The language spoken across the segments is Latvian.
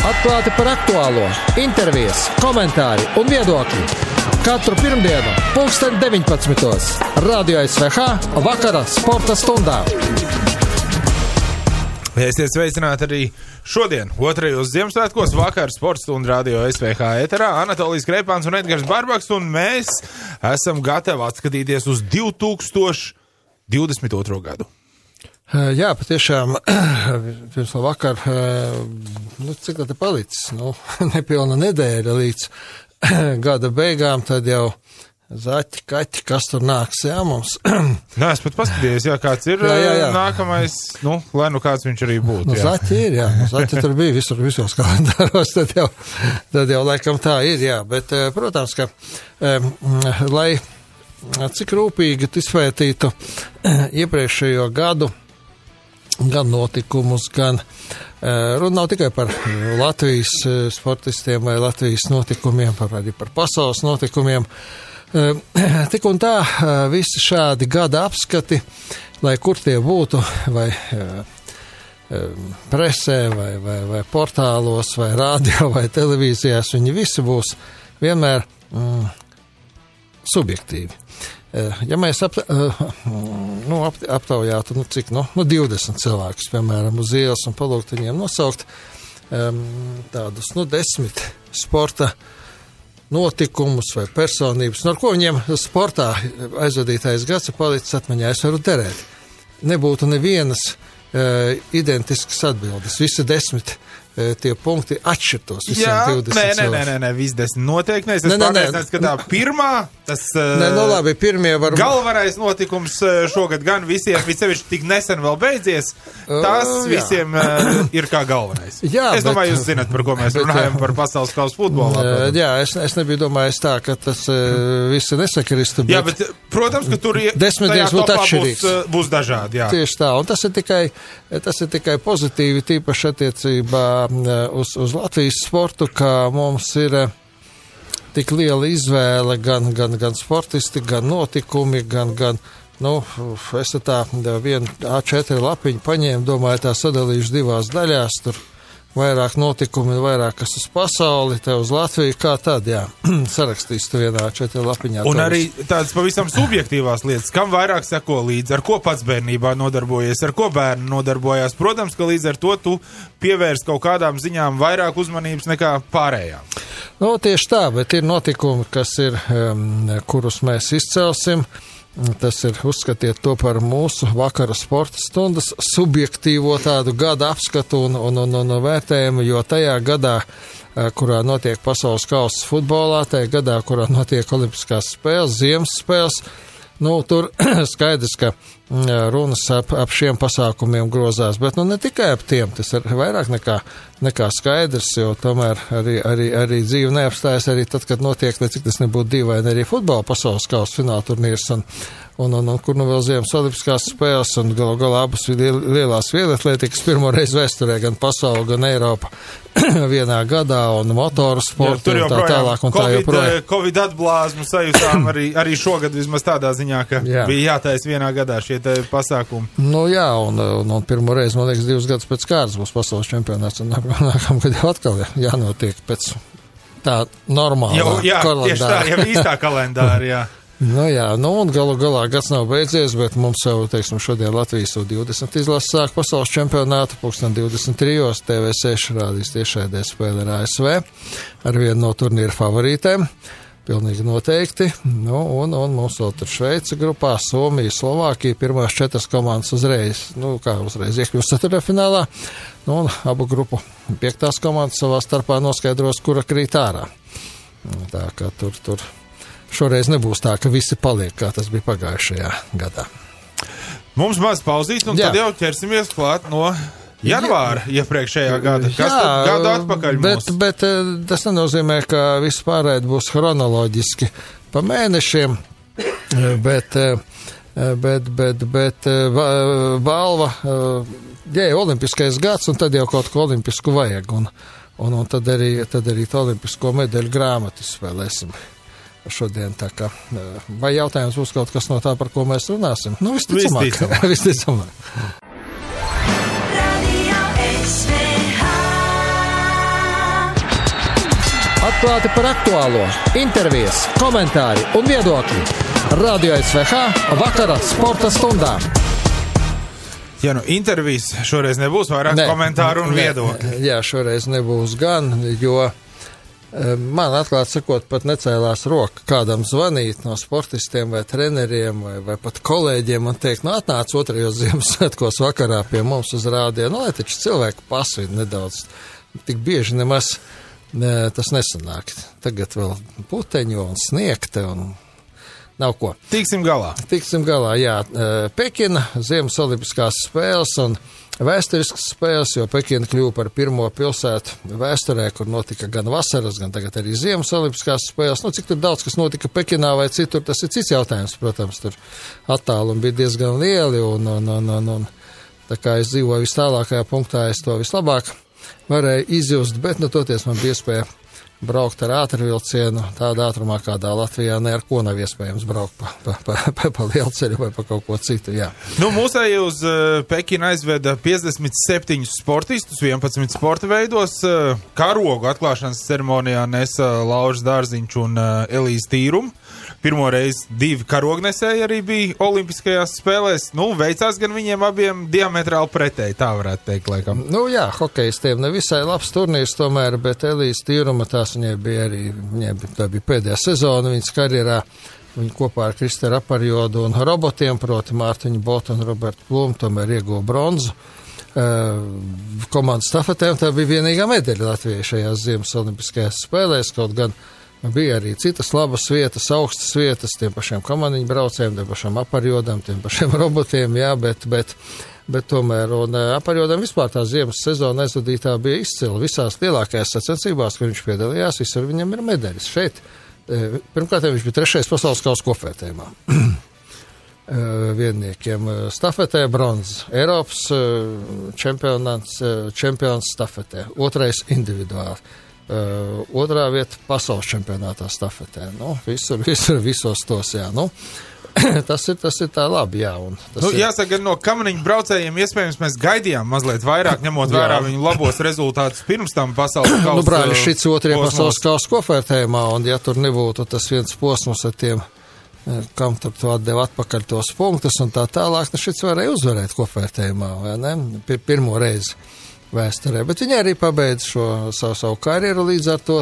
Atklāti par aktuālo, intervijas, komentāri un viedokļi. Katru pirmdienu, 19:00. Radio SVH vakara sporta stundā. Esiet sveicināti arī šodien, 2. Ziemassvētkos, vakar sports un radio SVH ēterā. Anatolijas Kreipāns un Edgars Barbaks, un mēs esam gatavi atskatīties uz 2022. gadu. Jā, patiešām, pirms vakar, cik tā te palicis, nepilna nedēļa līdz gada beigām, tad jau zaķi, kaķi, kas tur nāks, jā, mums. Nē, es pat paskatījos, jā, kāds ir nākamais, lai kāds viņš arī būtu. Zaķi ir, jā, zaķi tur bija visos kalendāros, tad jau laikam tā ir, jā, bet, protams, ka, lai cik rūpīgi izpētītu iepriekšējo gadu, gan notikumus, gan runa nav tikai par Latvijas sportistiem vai Latvijas notikumiem, arī par pasaules notikumiem. Tik un tā visi šādi gada apskati, lai kur tie būtu, vai presē, vai portālos, vai radio, vai televīzijās, viņi visi būs vienmēr subjektīvi. Ja mēs aptaujātu, cik, 20 cilvēkus, piemēram, uz ielas un palūgt viņiem nosaukt tādus, 10 sporta notikumus vai personības, ar ko viņiem sportā aizvadītais gads ir palicis atmiņā, es varu derēt. Nebūtu nevienas identiskas atbildes, visi 10 tie punkti atšķirtos visiem 20 cilvēkiem. Nē, visi 10 noteikti. Es pārliecināts, ka tā pirmā, tas labi, pirmie var... galvenais notikums šogad gan visiem, visevišķi tik nesen vēl beidzies, tas visiem ir kā galvenais. Jā, es domāju, jūs zināt, par ko mēs runājam, par pasaules kausa futbolā. Jā, es nebiju domājis tā, ka tas visi nesakristu. Jā, bet, protams, ka tur 10 dienas būtu atšķirīgs. Būs dažādi, jā. Tieši tā, un tas ir tikai pozitīvi, tīpaši attiecībā uz Latvijas sportu, kā mums ir tik liela izvēle, gan sportisti, gan notikumi, gan es tā vienu A4 lapiņu paņēmu, domāju, tā sadalīšu 2 daļās, tur vairāk notikumi, vairāk kas uz pasauli, te uz Latviju, kā tad, jā, sarakstīs tu vienā A4 lapiņā. Un arī tādas pavisam subjektīvās lietas, kam vairāk seko līdzi, ar ko pats bērnībā nodarbojies, ar ko bērni nodarbojās. Protams, ka līdz ar to tu pievērst kaut kādām ziņām vairāk uzmanības nekā pārējām. Tieši tā, bet ir notikumi, kas ir, kurus mēs izcelsim. Tas ir, uzskatiet to par mūsu vakara sporta stundas subjektīvo tādu gada apskatu un vērtējumu, jo tajā gadā, kurā notiek pasaules kausa futbolā, tajā gadā, kurā notiek olimpiskās spēles, ziemas spēles, tur skaidrs, ka runas ap šiem pasākumiem grozās, bet ne tikai ap tiem, tas ir vairāk nekā skaidrs, jo tomēr arī dzīve neapstājas arī tad, kad notiek, cik tas nebūtu dīvaini, arī futbola pasaules kausa fināla turnīrs un kur vēl ziemas olimpiskās spēles un galā abas lielās vieglatlētikas pirmoreiz vēsturē, gan pasauli, gan Eiropa vienā gadā un motoru sportu un tā tālāk un tā joprojām. Covid atblāzmu sajūtām arī šogad vismaz tādā ziņā, ka bija jātais vienā gadā šie pasākumi. Jā, un pirmoreiz, man liekas, 2 gadus pēc kārtas būs pasaules čempionāts un nākamgad jau atkal jānotiek pēc tā normālā kalendāra. Tieši tā, jau īstā kalendāra, jā. Un galā gads nav beidzies, bet mums jau, šodien Latvijas U20 izlases sāk pasaules čempionātu, 23. TV6 rādīs tiešraidē spēle ar ASV, ar vienu no turnīra favorītēm, pilnīgi noteikti, un mums vēl tur Šveica grupā, Somija, Slovākija, pirmās 4 komandas uzreiz iekļūst ceturtfinālā, un abu grupu 5. komandas savā starpā noskaidros, kura krīt ārā. Tā kā tur šoreiz nebūs tā, ka visi paliek, kā tas bija pagājušajā gadā. Mums maz pauzīt, un tad jau ķersimies klāt no janvāra iepriekšējā gada. Kas tad gadu atpakaļ mums? Bet tas nenozīmē, ka viss pārēd būs chronoloģiski pa mēnešiem, bet balva, olimpiskais gads, un tad jau kaut ko olimpisku vajag, un tad arī to olimpisko medaļu grāmatu spēlēsim. Šodien tā kā, vai jautājums būs kaut kas no tā, par ko mēs runāsim? Visticamāk. Atklāti par aktuālo, intervijas, komentāri un viedokļi. Radio SVH vakara sporta stundā. Ja intervijas šoreiz nebūs vairāk komentāru un viedokļi. Jā, šoreiz nebūs gan, jo man atklāt sakot pat necēlās roka kādam zvanīt no sportistiem vai treneriem vai pat kolēģiem un teikt, atnāc 2. Ziemassvētkos vakarā pie mums uz rādio, lai taču cilvēku pasvīd nedaudz. Tik bieži nemaz tas nesanāk. Tagad vēl puteņu un sniegte un nav ko. Tiksim galā, jā. Pekina, Ziemas olimpiskās spēles un vēsturiskas spēles, jo Pekina kļuva par pirmo pilsētu vēsturē, kur notika gan vasaras, gan tagad arī Ziemas olimpiskās spēles. Cik tur daudz, kas notika Pekinā vai citur, tas ir cits jautājums, protams, tur attālumi bija diezgan lieli un tā kā es dzīvoju vis tālākajā punktā, es to vislabāk varēju izjust, bet toties man bija iespēja braukt ar ātrvilcienu tādā ātrumā, kādā Latvijā ne ar ko nav iespējams braukt pa lielceļu vai pa kaut ko citu, jā. Mūsēji uz Pekinu aizveda 57 sportistus, 11 sporta veidos. Karogu atklāšanas ceremonijā nesa Lauris Dārziņš un Elīze Tīruma. Pirmo reizi 2 karognesēji arī bija olimpiskajās spēlēs. Veicās gan viņiem abiem diametrāli pretēji, tā varētu teikt, laikam. Jā, hokejistiem nevisai labs turnīrs tomēr, bet Elīze Tīruma viņai bija pēdējā sezona viņas karjerā. Viņa kopā ar Kristeru Aparjodu un robotiem, proti Mārtiņu Botu un Robertu Plumu, tomēr ieguva bronzu. Komandas stafetēm tā bija vienīgā medaļa Latvijai šajās Ziemas olimpiskajās spēlēs, kaut gan bija arī citas labas vietas, augstas vietas, tiem pašiem kamaniņu braucējiem, tiem pašiem Aparjodam, tiem pašiem robotiem, jā, bet tomēr, un Aparjodam vispār tā ziemas sezona aizvadītā bija izcila visās lielākajās sacensībās, kur viņš piedalījās, visur viņam ir medaļas. Šeit, pirmkārt, viņš bija 3. pasaules kausa kopvērtējumā. Vienniekiem stafetē bronzas, Eiropas čempions stafetē, 2. individuāli. 2. vieta pasaules čempionātā stafetē. Visos tos, jā. Tas ir tā labi, jā. Jāsaka, no kamaniņu braucējiem iespējams mēs gaidījām mazliet vairāk, ņemot vērā viņu labos rezultātus pirms tam pasaules kausa. Brāļi, šits 2. pasaules kausa kopvērtējumā, un ja tur nebūtu tas viens posms ar tiem, kam tur to atdeva atpakaļ tos punktus un tā tālāk, šits varēja uzvarēt kopvērtējumā, vai ne? Pirmo reizi vēsturē, bet viņi arī pabeidz šo savu karjeru līdz ar to,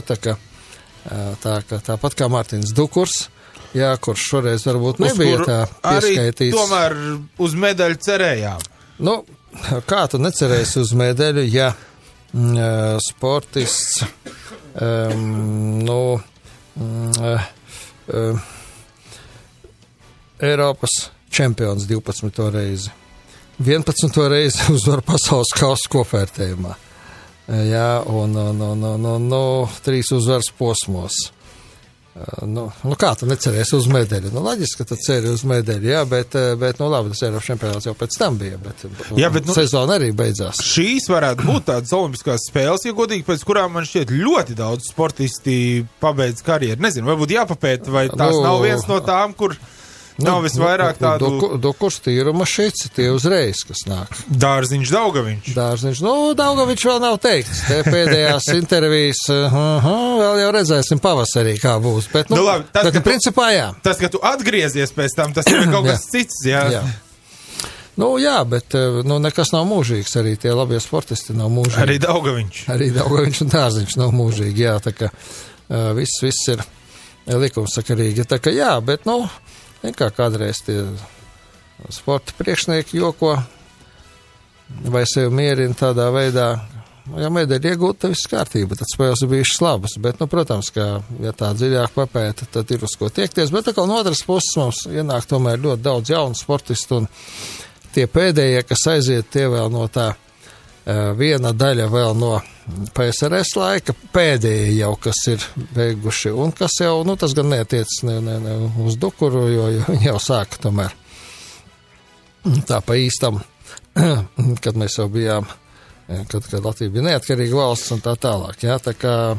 tāpat kā Mārtiņš Dukurs, jā, kurš šoreiz varbūt nebija tā pieskaitīts. Arī tomēr uz medaļu cerējām. Kā tu necerēsi uz medaļu, ja sportists Eiropas čempions 12. reizi. 11. reizi uzvar pasaules kausa kopvērtējumā. Jā, un 3 uzvaras posmos. Kā tu necerēsi uz medaļu? Loģiski, ka tu ceri uz medaļu, jā, bet labi, tas Eiropas čempionāts jau pēc tam bija, bet sezona arī beidzās. Šīs varētu būt tādas olimpiskās spēles, ja godīgi, pēc kurām man šķiet ļoti daudz sportisti pabeidz karjeru. Nezinu, varbūt jāpapēta, vai tās nav viens no tām, kur nav visvairāk tādu... Dukurs, Tīruma, Šici, tie uzreiz, kas nāk. Dārziņš, Daugaviņš. Daugaviņš vēl nav teikts. Te pēdējās intervijas, vēl jau redzēsim pavasarī, kā būs. Bet, labi, principā, jā. Tas, ka tu atgriezies pēc tam, tas ir kaut kas cits, jā. Jā, bet nekas nav mūžīgs. Arī tie labie sportisti nav mūžīgi. Arī Daugaviņš un Dārziņš nav mūžīgi, jā. Tā kā viss ir likumsakarīgi. Tā kā jā, bet, kā kādreiz tie sporta priekšnieki joko vai sevi mierina tādā veidā, ja medaļa iegūta, viss kārtība, tad spēles ir bijušas labas, bet, protams, ka, ja tā dziļāk papēta, tad ir uz ko tiekties, bet no otras puses mums ienāk tomēr ļoti daudz jaunu sportistu, un tie pēdējie, kas aiziet, tie vēl no tā viena daļa vēl no PSRS laika, pēdējie jau, kas ir beiguši, un kas jau, tas gan neatiec ne uz Dukuru, jo viņi jau sāka tomēr tā pa īstam, kad mēs jau bijām, kad Latvija bija neatkarīga valsts un tā tālāk, jā, tā kā,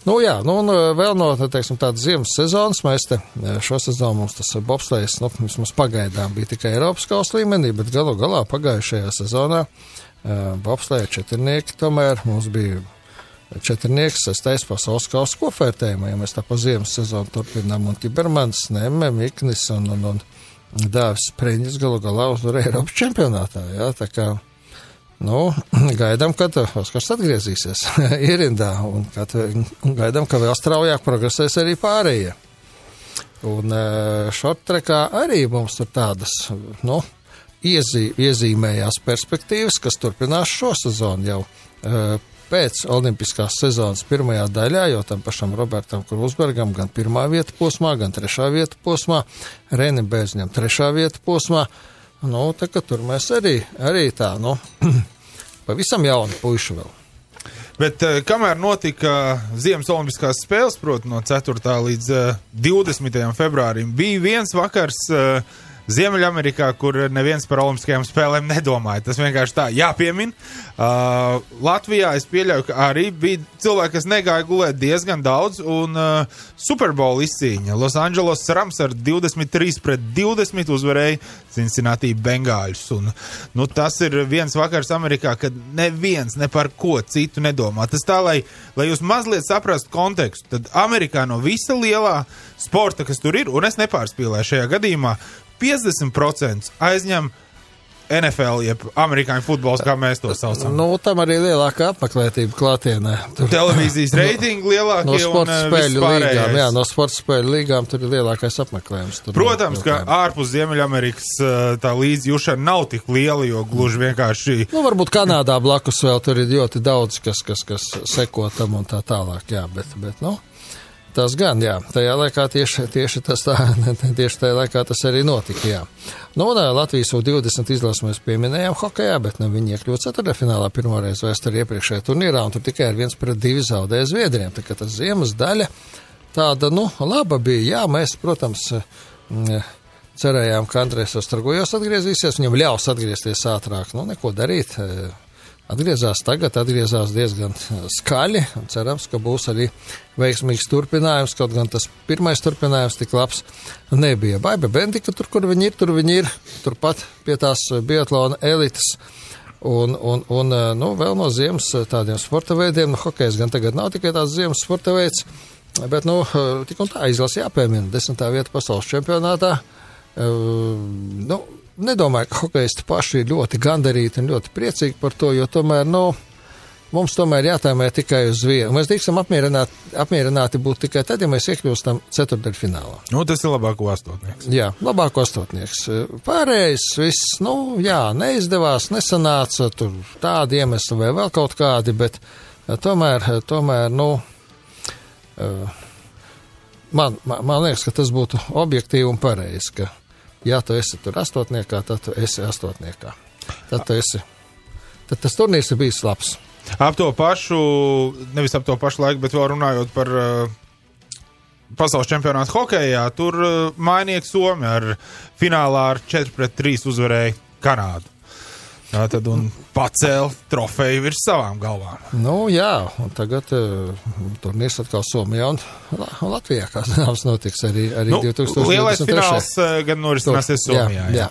un vēl no, teiksim, tādas ziemas sezonas, mēs te šo sezonu mums tas bobslejs, vismaz pagaidām bija tikai Eiropas kausa līmenī, bet galu galā pagājušajā sezonā bobsleja četrnieki tomēr mums bija četrnieks, 6. pasaules kausa kopvērtējumā, ja mēs tā pa ziemas sezonu turpinām, un Tibermans, Nemme, Miknis un Dāvis Spriņģis galu galā uzvarēja Eiropas čempionātā, jā, tā kā, gaidām, kad Oskars atgriezīsies ierindā, un gaidām, ka vēl straujāk progresēs arī pārējie. Un šorttrekā arī mums tur tādas, iezīmējās perspektīvas, kas turpinās šo sezonu jau pēc olimpiskās sezonas pirmajā daļā, jo tam pašam Robertam Krūsbergam gan 1. vieta posmā, gan 3. vieta posmā, Renim Bēzņam 3. vieta posmā, tā ka tur mēs arī tā, pavisam jauni puiši vēl. Bet kamēr notika Ziemas olimpiskās spēles, proti no 4. līdz 20. februārim, bija viens vakars Ziemeļamerikā, kur neviens par olimpiskajām spēlēm nedomāja. Tas vienkārši tā jāpiemin. Latvijā es pieļauju, ka arī bija cilvēki, kas negāja gulēt diezgan daudz, un Super Bowl izcīņa. Los Angeles Rams ar 23-20 uzvarēja Cincinnati Bengāļus. Un, tas ir viens vakars Amerikā, kad neviens ne par ko citu nedomā. Tas tā, lai jūs mazliet saprastu kontekstu, tad Amerikā no visa lielā sporta, kas tur ir, un es nepārspīlēju šajā gadījumā, 50% aizņem NFL, jeb amerikāņu futbols, kā mēs to saucam. Tam arī lielākā apmeklētība klātienē. Televīzijas reitingi lielākie no sporta un spēļu līgām. Jā, no sporta spēļu līgām tur ir lielākais apmeklējums. Protams, ka ārpus Ziemeļamerikas tā līdzjūšana nav tik liela, jo gluži vienkārši... varbūt Kanādā blakus vēl tur ir ļoti daudz, kas seko tam un tā tālāk, jā, bet tas gan, jā. Tajā laikā tieši tajā laikā tas arī notika, jā. Latvijas U20 izlases mēs pieminējām hokejā, bet viņi iekļūt ceturtdaļfinālā pirmoreiz vēsturē iepriekšējā turnīrā, un tur tikai ar 1-2 zaudēja Zviedriem. Tā kā tas ziemas daļa tāda, laba bija. Jā, mēs, protams, cerējām, ka Andrejs Ostrogojos atgriezīsies, viņam ļaus atgriezties ātrāk. Neko darīt. Atgriezās diezgan skaļi, un cerams, ka būs arī veiksmīgs turpinājums, kaut gan tas pirmais turpinājums tik labs nebija. Baiba Bendika, kur viņi ir, turpat pie tās biatlona elites, un vēl no ziemas tādiem sporta veidiem, hokejs gan tagad nav tikai tāds ziemas sporta veids, bet, tik un tā izlase jāpiemina, 10. vieta pasaules čempionātā, nedomāju, ka hokejisti paši ir ļoti gandarīti un ļoti priecīgi par to, jo tomēr, mums tomēr jātēmē tikai uz vienu. Mēs drīkstam apmierināti būt tikai tad, ja mēs iekļūstam ceturtdaļfinālā. Tas ir labāko astotnieks. Jā, labāko astotnieks. Pārējais viss, neizdevās, nesanāca, tur tādi iemesli vai vēl kaut kādi, bet tomēr, man liekas, ka tas būtu objektīvi un pareizi, ka ja tu esi tur astotniekā, tad tu esi astotniekā. Tad tas turnīrs ir bijis labs. Nevis ap to pašu laiku, bet vēl runājot par pasaules čempionātu hokejā, tur mainieki Somi ar finālā ar 4-3 uzvarēja Kanādu. Tad un pacēla trofeju virs savām galvām. Jā, un tagad turnīrs atkal Somijā un Latvijā, kā zināms, notiks arī 2023. Lielais fināls gan norisināsies Somijā. Jā.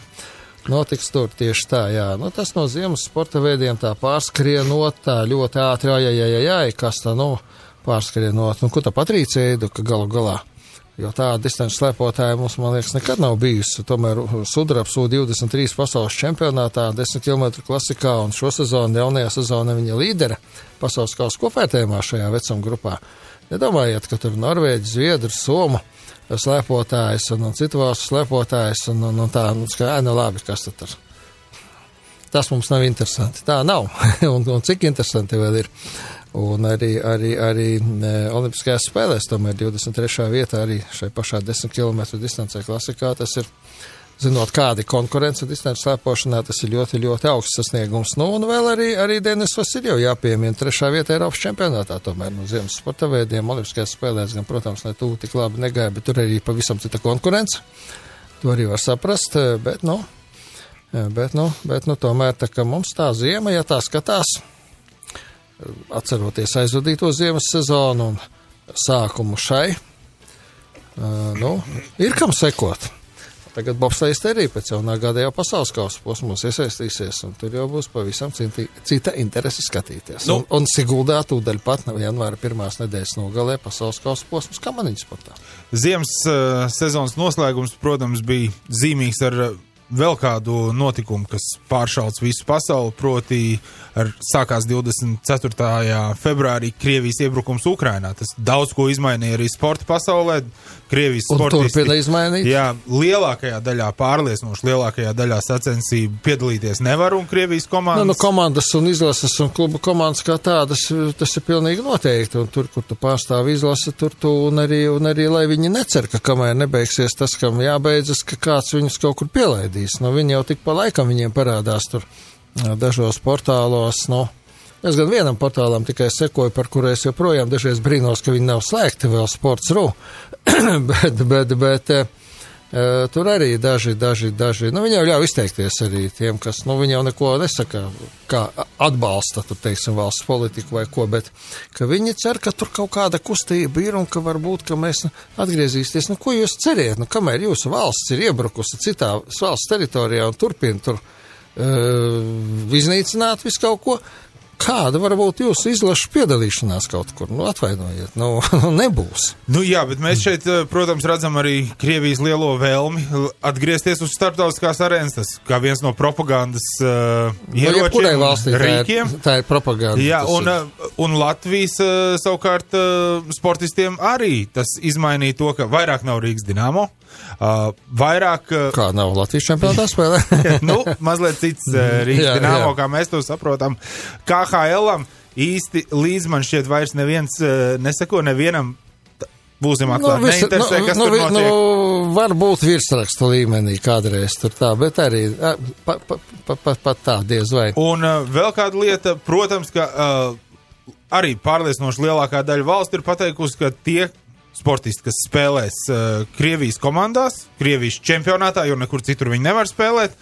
Notiks tur tieši tā, jā. Tas no ziemas sporta veidiem tā pārskrienot, tā ļoti ātri, kas tā, pārskrienot. Ko tā Patrīcija Eiduka galu galā? Jo tāda distanču slēpotāja mums, man liekas, nekad nav bijusi. Tomēr sudrabs U23 pasaules čempionātā 10 km klasikā un šo sezonu, jaunajā sezonā viņa līdera pasaules kausa kopvērtējumā šajā vecuma grupā. Nedomājiet, ka tur Norvēģi, Zviedri, Somu slēpotājs un citu valstu slēpotājs un tā, labi, kas tad tur. Tas mums nav interesanti. Tā nav. un cik interesanti vēl ir. Un arī olimpiskajās spēlēs, tomēr 23. vietā arī šai pašā 10 km distancē klasikā, tas ir, zinot, kādi konkurence distanču slēpošanā, tas ir ļoti, ļoti augsts sasniegums. Un vēl arī Denis Vasiljevs jāpiemina 3. vietā Eiropas čempionātā, tomēr no ziemas sporta veidiem olimpiskajās spēlēs, gan, protams, ne tuvu tik labi negāja, bet tur arī pavisam cita konkurence. To arī var saprast, bet tomēr tā, ka mums tā ziema, ja tā skatās, atceroties aizvadīto ziemas sezonu un sākumu šai, ir kam sekot. tagad bobslējas arī pēc jaunā gada jau pasaules kausa posmos iesaistīsies, un tur jau būs pavisam cita interese skatīties. Nu, un Siguldā tūdaļ pat janvāra 1. nedēļas nogalē pasaules kausa posmus kamaniņu sportā. Ziemas sezonas noslēgums, protams, bija zīmīgs ar vēl kādu notikumu, kas pāršauc visu pasauli, proti sākās 24. februārī Krievijas iebrukums Ukrainā. Tas daudz ko izmainīja arī sporta pasaulē. Krievijas sportisti, turpina izmainīt. Jā, lielākajā daļā, pārliecinoši lielākajā daļā sacensību piedalīties nevar, un Krievijas komandas... Nu, komandas un izlases un klubu komandas kā tādas, tas ir pilnīgi noteikti, un tur, kur tu pārstāvi izlasi, tur tu, un arī, lai viņi necer, ka kamēr nebeigsies tas, kam jābeidzas, ka kāds viņus kaut kur pielaidīs. Nu, viņi jau tik pa laikam viņiem parādās tur dažos portālos, nu, es gan vienam portālam tikai sekoju, par kuru es joprojām dažreiz brīnos, ka viņi nav slēgti vēl Sports.ru, bet tur arī daži, nu, viņi jau ļauj izteikties arī tiem, kas, nu, viņi jau neko nesaka, kā atbalsta, tu teiksim, valsts politiku vai ko, bet, ka viņi cer, ka tur kaut kāda kustība ir un ka varbūt, ka mēs atgriezīsies, nu, ko jūs ceriet, nu, kamēr jūsu valsts ir iebrukusi citā valsts teritorijā un turpina tur iznīcināt visu kaut ko, kāda var būt jūsu izlašu piedalīšanās kaut kur? Nu, atvainojiet, nu nebūs. Nu jā, bet mēs šeit, protams, redzam arī Krievijas lielo vēlmi atgriezties uz starptautiskās arēnas, tas kā viens no propagandas ieročiem, rīkiem. Tā ir propaganda. Jā, un Latvijas savukārt sportistiem arī tas izmainīja to, ka vairāk nav Rīgas Dinamo, vairāk... Kā nav Latvijas čempionātā spēlē? Nu, mazliet cits Rīgas Dinamo, kā mēs to saprotam. KHL-am īsti līdz man šķiet vairs neviens neseko, nevienam būsim atklāti, neinteresē, kas tur notiek. Nu, varbūt virsrakstu līmenī kādreiz tur tā, bet arī pat tā diez vai. Un vēl kāda lieta, protams, ka arī pārliecinoši lielākā daļa valsts ir pateikusi, ka tie sportisti, kas spēlēs Krievijas komandās, Krievijas čempionātā, jo nekur citur viņi nevar spēlēt,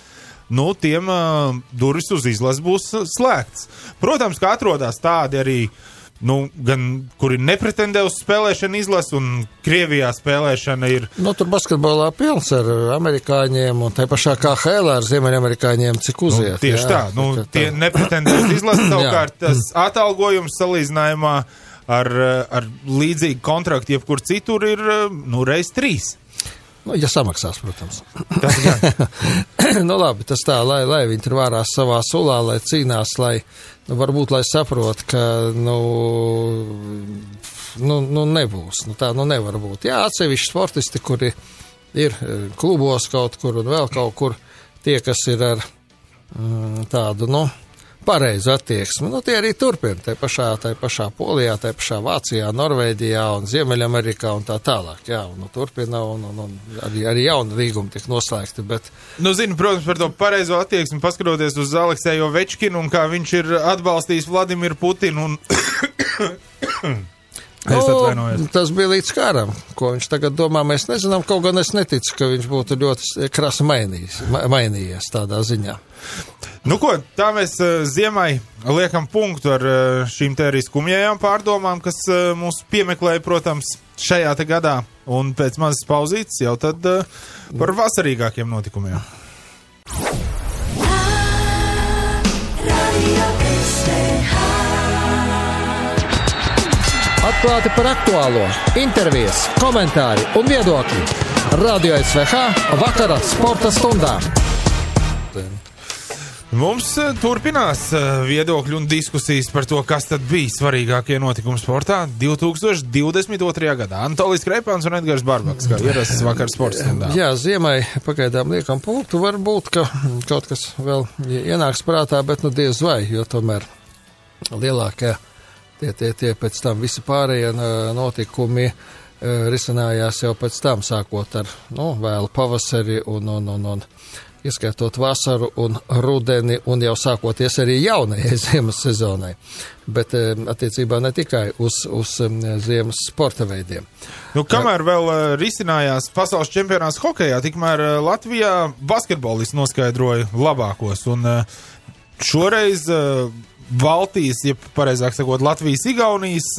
nu, tiem durvis uz izlases būs slēgts. Protams, ka atrodas tādi arī, nu, gan, kuri nepretendē uz spēlēšanu izlases, un Krievijā spēlēšana ir... Nu, tur basketbolā pilns ar amerikāņiem, un tai pašā KHL ar ziemeļamerikāņiem, cik uziet. Nu, tieši tā, nu, tie nepretendē uz izlases, savukārt tas atalgojums salīdzinājumā ar līdzīgu kontraktu jebkur citur ir, nu, reiz 3. Nu, ja samaksās, protams. Tas gan. Nu, labi, tas tā, lai viņi tur vārās savā sulā, lai cīnās, lai, nu, varbūt, lai saprot, ka, nu nebūs. Nu, tā, nu, nevar būt. Jā, atsevišķi sportisti, kuri ir klubos kaut kur un vēl kaut kur, tie, kas ir ar tādu, nu, pareizu attieksmi. Nu, tie arī turpina, tai pašā Polijā, tai pašā Vācijā, Norvēģijā un Ziemeļamerikā un tā tālāk. Jā, un turpina un arī jauni līgumi tiek noslēgti, bet... Nu, zinu, protams, par to pareizo attieksmi, paskatoties uz Alekseju Ovečkinu un kā viņš ir atbalstījis Vladimiru Putinu un... Tas bija līdz kāram, ko viņš tagad domā, mēs nezinām, kaut gan es neticu, ka viņš būtu ļoti krasi mainījies tādā ziņā. Nu ko, tā mēs ziemai liekam punktu ar šīm te arī skumjajām pārdomām, kas mūs piemeklēja, protams, šajā te gadā, un pēc mazas pauzītes jau tad par vasarīgākiem notikumiem. Atklāti par aktuālo, intervijas, komentāri un viedokļi. Radio SVH vakara sporta stundā. Mums turpinās viedokļi un diskusijas par to, kas tad bija svarīgākie notikumi sportā 2022. gadā. Antolijs Kreipāns un Edgars Barbaks, kā ierasts vakar sporta stundā. Jā, ziemai pagaidām liekam punktu, varbūt, ka kaut kas vēl ienāks prātā, bet nu diez vai, jo tomēr lielākie tie pēc tam visi pārējie notikumi risinājās jau pēc tam, sākot ar, nu, vēlu pavasari un ieskaitot vasaru un rudeni un jau sākoties arī jaunajai ziemas sezonai, bet attiecībā ne tikai uz ziemas sporta veidiem. Nu, kamēr vēl risinājās pasaules čempionāts hokejā, tikmēr Latvijā basketbolists noskaidroja labākos, un šoreiz Baltijas, ja pareizāk sakot, Latvijas-Igaunijas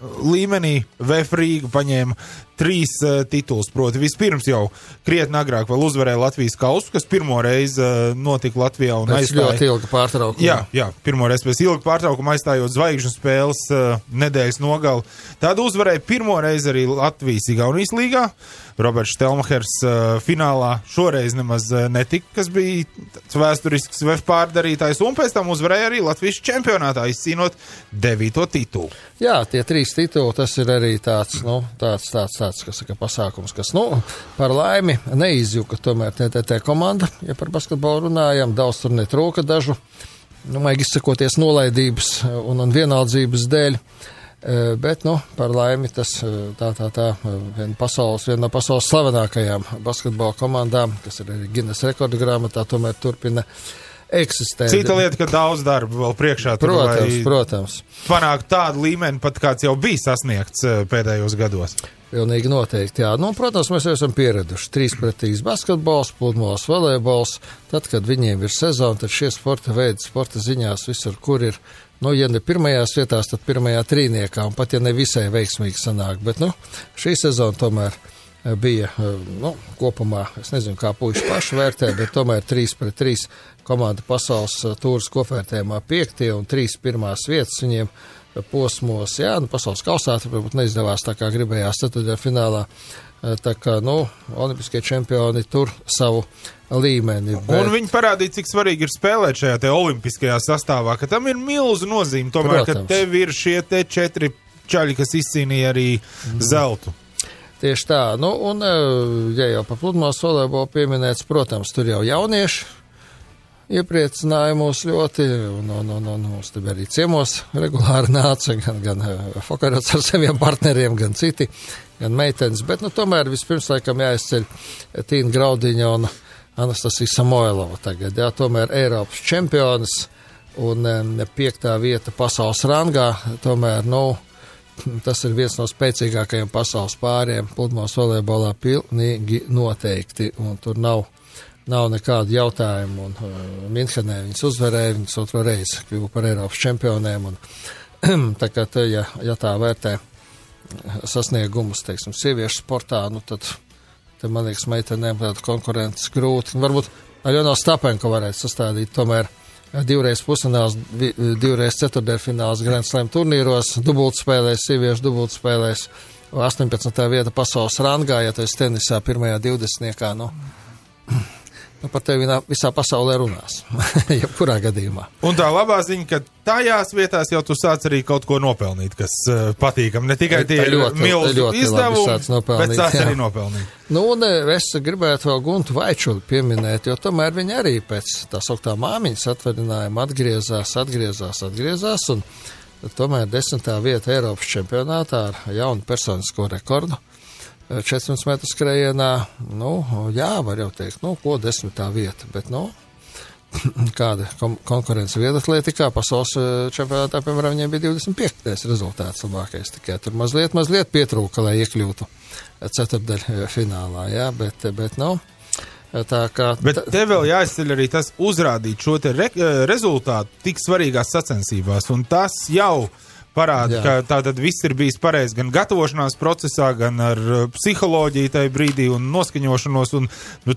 līmenī VF Rīga paņēma 3 titulus, proti vispirms jau krietni agrāk vēl uzvarēja Latvijas kausu, kas pirmo reizi notika Latvijā un aizstāja. Ļoti ilga pārtraukuma. Jā, pirmo reizi pēc ilga pārtraukuma aizstājot zvaigžņu spēles nedēļas nogali. Tādu uzvarēja pirmo reizi arī Latvijas Igaunijas līgā. Roberts Štelmachers finālā šoreiz nemaz netika, kas bija vēsturisks VF pārdarītājs, un pēc tam uzvarēja arī Latvijas čempionātā, izcīnot 9. titulu. Jā, tie 3 tituli, tas ir arī tāds kas saka, pasākums, kas, par laimi neizjuka tomēr TTT komanda, ja par basketbolu runājam, daudz tur netrūka dažu, vajag izsakoties nolaidības un vienaldzības dēļ, bet, par laimi tas viena no pasaules slavenākajām basketbola komandām, kas ir arī Guinness rekordu grāmatā, tomēr turpina eksistē. Cita lieta, ka daudz darba vēl priekšā. Protams. Panākt tādu līmeni, pat kāds jau bija sasniegts pēdējos gados. Pilnīgi noteikti, jā. Protams, mēs jau esam pieraduši 3-3 basketbols, pludmales volejbols. Tad, kad viņiem ir sezona, tad šie sporta veidi, sporta ziņās visur, kur ir, ja ne pirmajās vietās, tad pirmajā trīniekā, un pat ja ne visai veiksmīgi sanāk. Bet, šī sezona tomēr bija, kopumā, es nezinu, kā puiši paši vērtē, bet tomēr 3-3 komanda pasaules tūras kopvērtējumā 5. un 3 pirmās vietas viņiem posmos, pasaules kausā, varbūt neizdevās tā kā gribējās ceturtdaļfinālā, tā kā, olimpiskie čempioni tur savu līmeni. Un viņi parādīja, cik svarīgi ir spēlēt šajā te olimpiskajā sastāvā, ka tam ir milzu nozīme, tomēr, ka tev ir šie te 4 čaļi, kas izcīnīja arī zeltu. Tieši tā, un, ja jau pa pludmales volejbolu pieminēts, protams, tur jau jaunieši iepriecināja mūs ļoti, un mums te arī ciemos regulāri nāca, gan Fokarots ar saviem partneriem, gan citi, gan meitenes, bet, tomēr vispirms laikam jāizceļ Tīna Graudiņa un Anastasija Samoilova tagad, tomēr Eiropas čempionas un 5. vieta pasaules rangā, tomēr, tas ir viens no spēcīgākajiem pasaules pāriem pludmales volejbolā pilnīgi noteikti, un tur nav nekādu jautājumu, un Minhenē viņas uzvarēja, viņas otro reizi kļuva par Eiropas čempioniem, un tā kā ja tā vērtē sasniegumus, teiksim, sieviešu sportā, tad man liekas, meitenēm tāda konkurences grūti. Varbūt Aļona Stapenko varētu sastādīt tomēr 2 pusfināls, 2 ceturtdaļfināls Grand Slam turnīros, dubultspēlēs, sieviešu dubultspēlēs, 18. vieta pasaules rangā, ja tu esi tenisā pirmajā 20-niekā, par tevi visā pasaulē runās, jebkurā gadījumā. Un tā labā ziņa, ka tajās vietās jau tu sāc arī kaut ko nopelnīt, kas patīkam. Ne tikai tie milzu izdevumi, bet sāc arī nopelnīt. Un es gribētu vēl Guntu Vaičuli pieminēt, jo tomēr viņi arī pēc tā sauktā māmiņas atvaļinājuma atgriezās, un tomēr 10. vieta Eiropas čempionātā ar jaunu personisko rekordu. 400 metru skrējienā, var jau teikt, ko 10. vieta, bet, kāda konkurence vieglatlētikā pasaules čempionātā, piemēram, viņiem bija 25. rezultāts labākais, tikai tur mazliet pietrūka, lai iekļūtu ceturtdaļu finālā, bet tā kā... Bet te vēl jāizceļ arī tas uzrādīt šo te rezultātu tik svarīgās sacensībās, un tas jau parāda, ka tātad viss ir bijis pareizi gan gatavošanās procesā, gan ar psiholoģiju tajā brīdī un noskaņošanos, un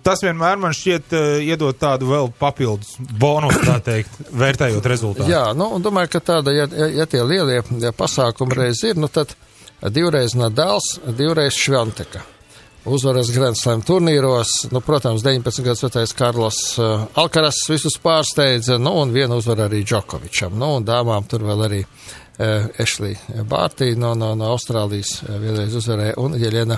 tas vienmēr man šķiet iedot tādu vēl papildus bonusu, tā teikt, vērtējot rezultātu. Jā, un domāju, ka tāda, ja tie lielie pasākumi reiz ir, tad 2 reiz Nadals, 2 reiz Švanteka. Uzvaras Grand Slam turnīros, protams, 19 gadus vecais Karlos Alkaras visus pārsteidza, un vienu uzvaru arī Džokovičam, un dāmām tur vēl arī Ešlī Bārtī no Austrālijas vienreiz uzvarēja, un Jeļena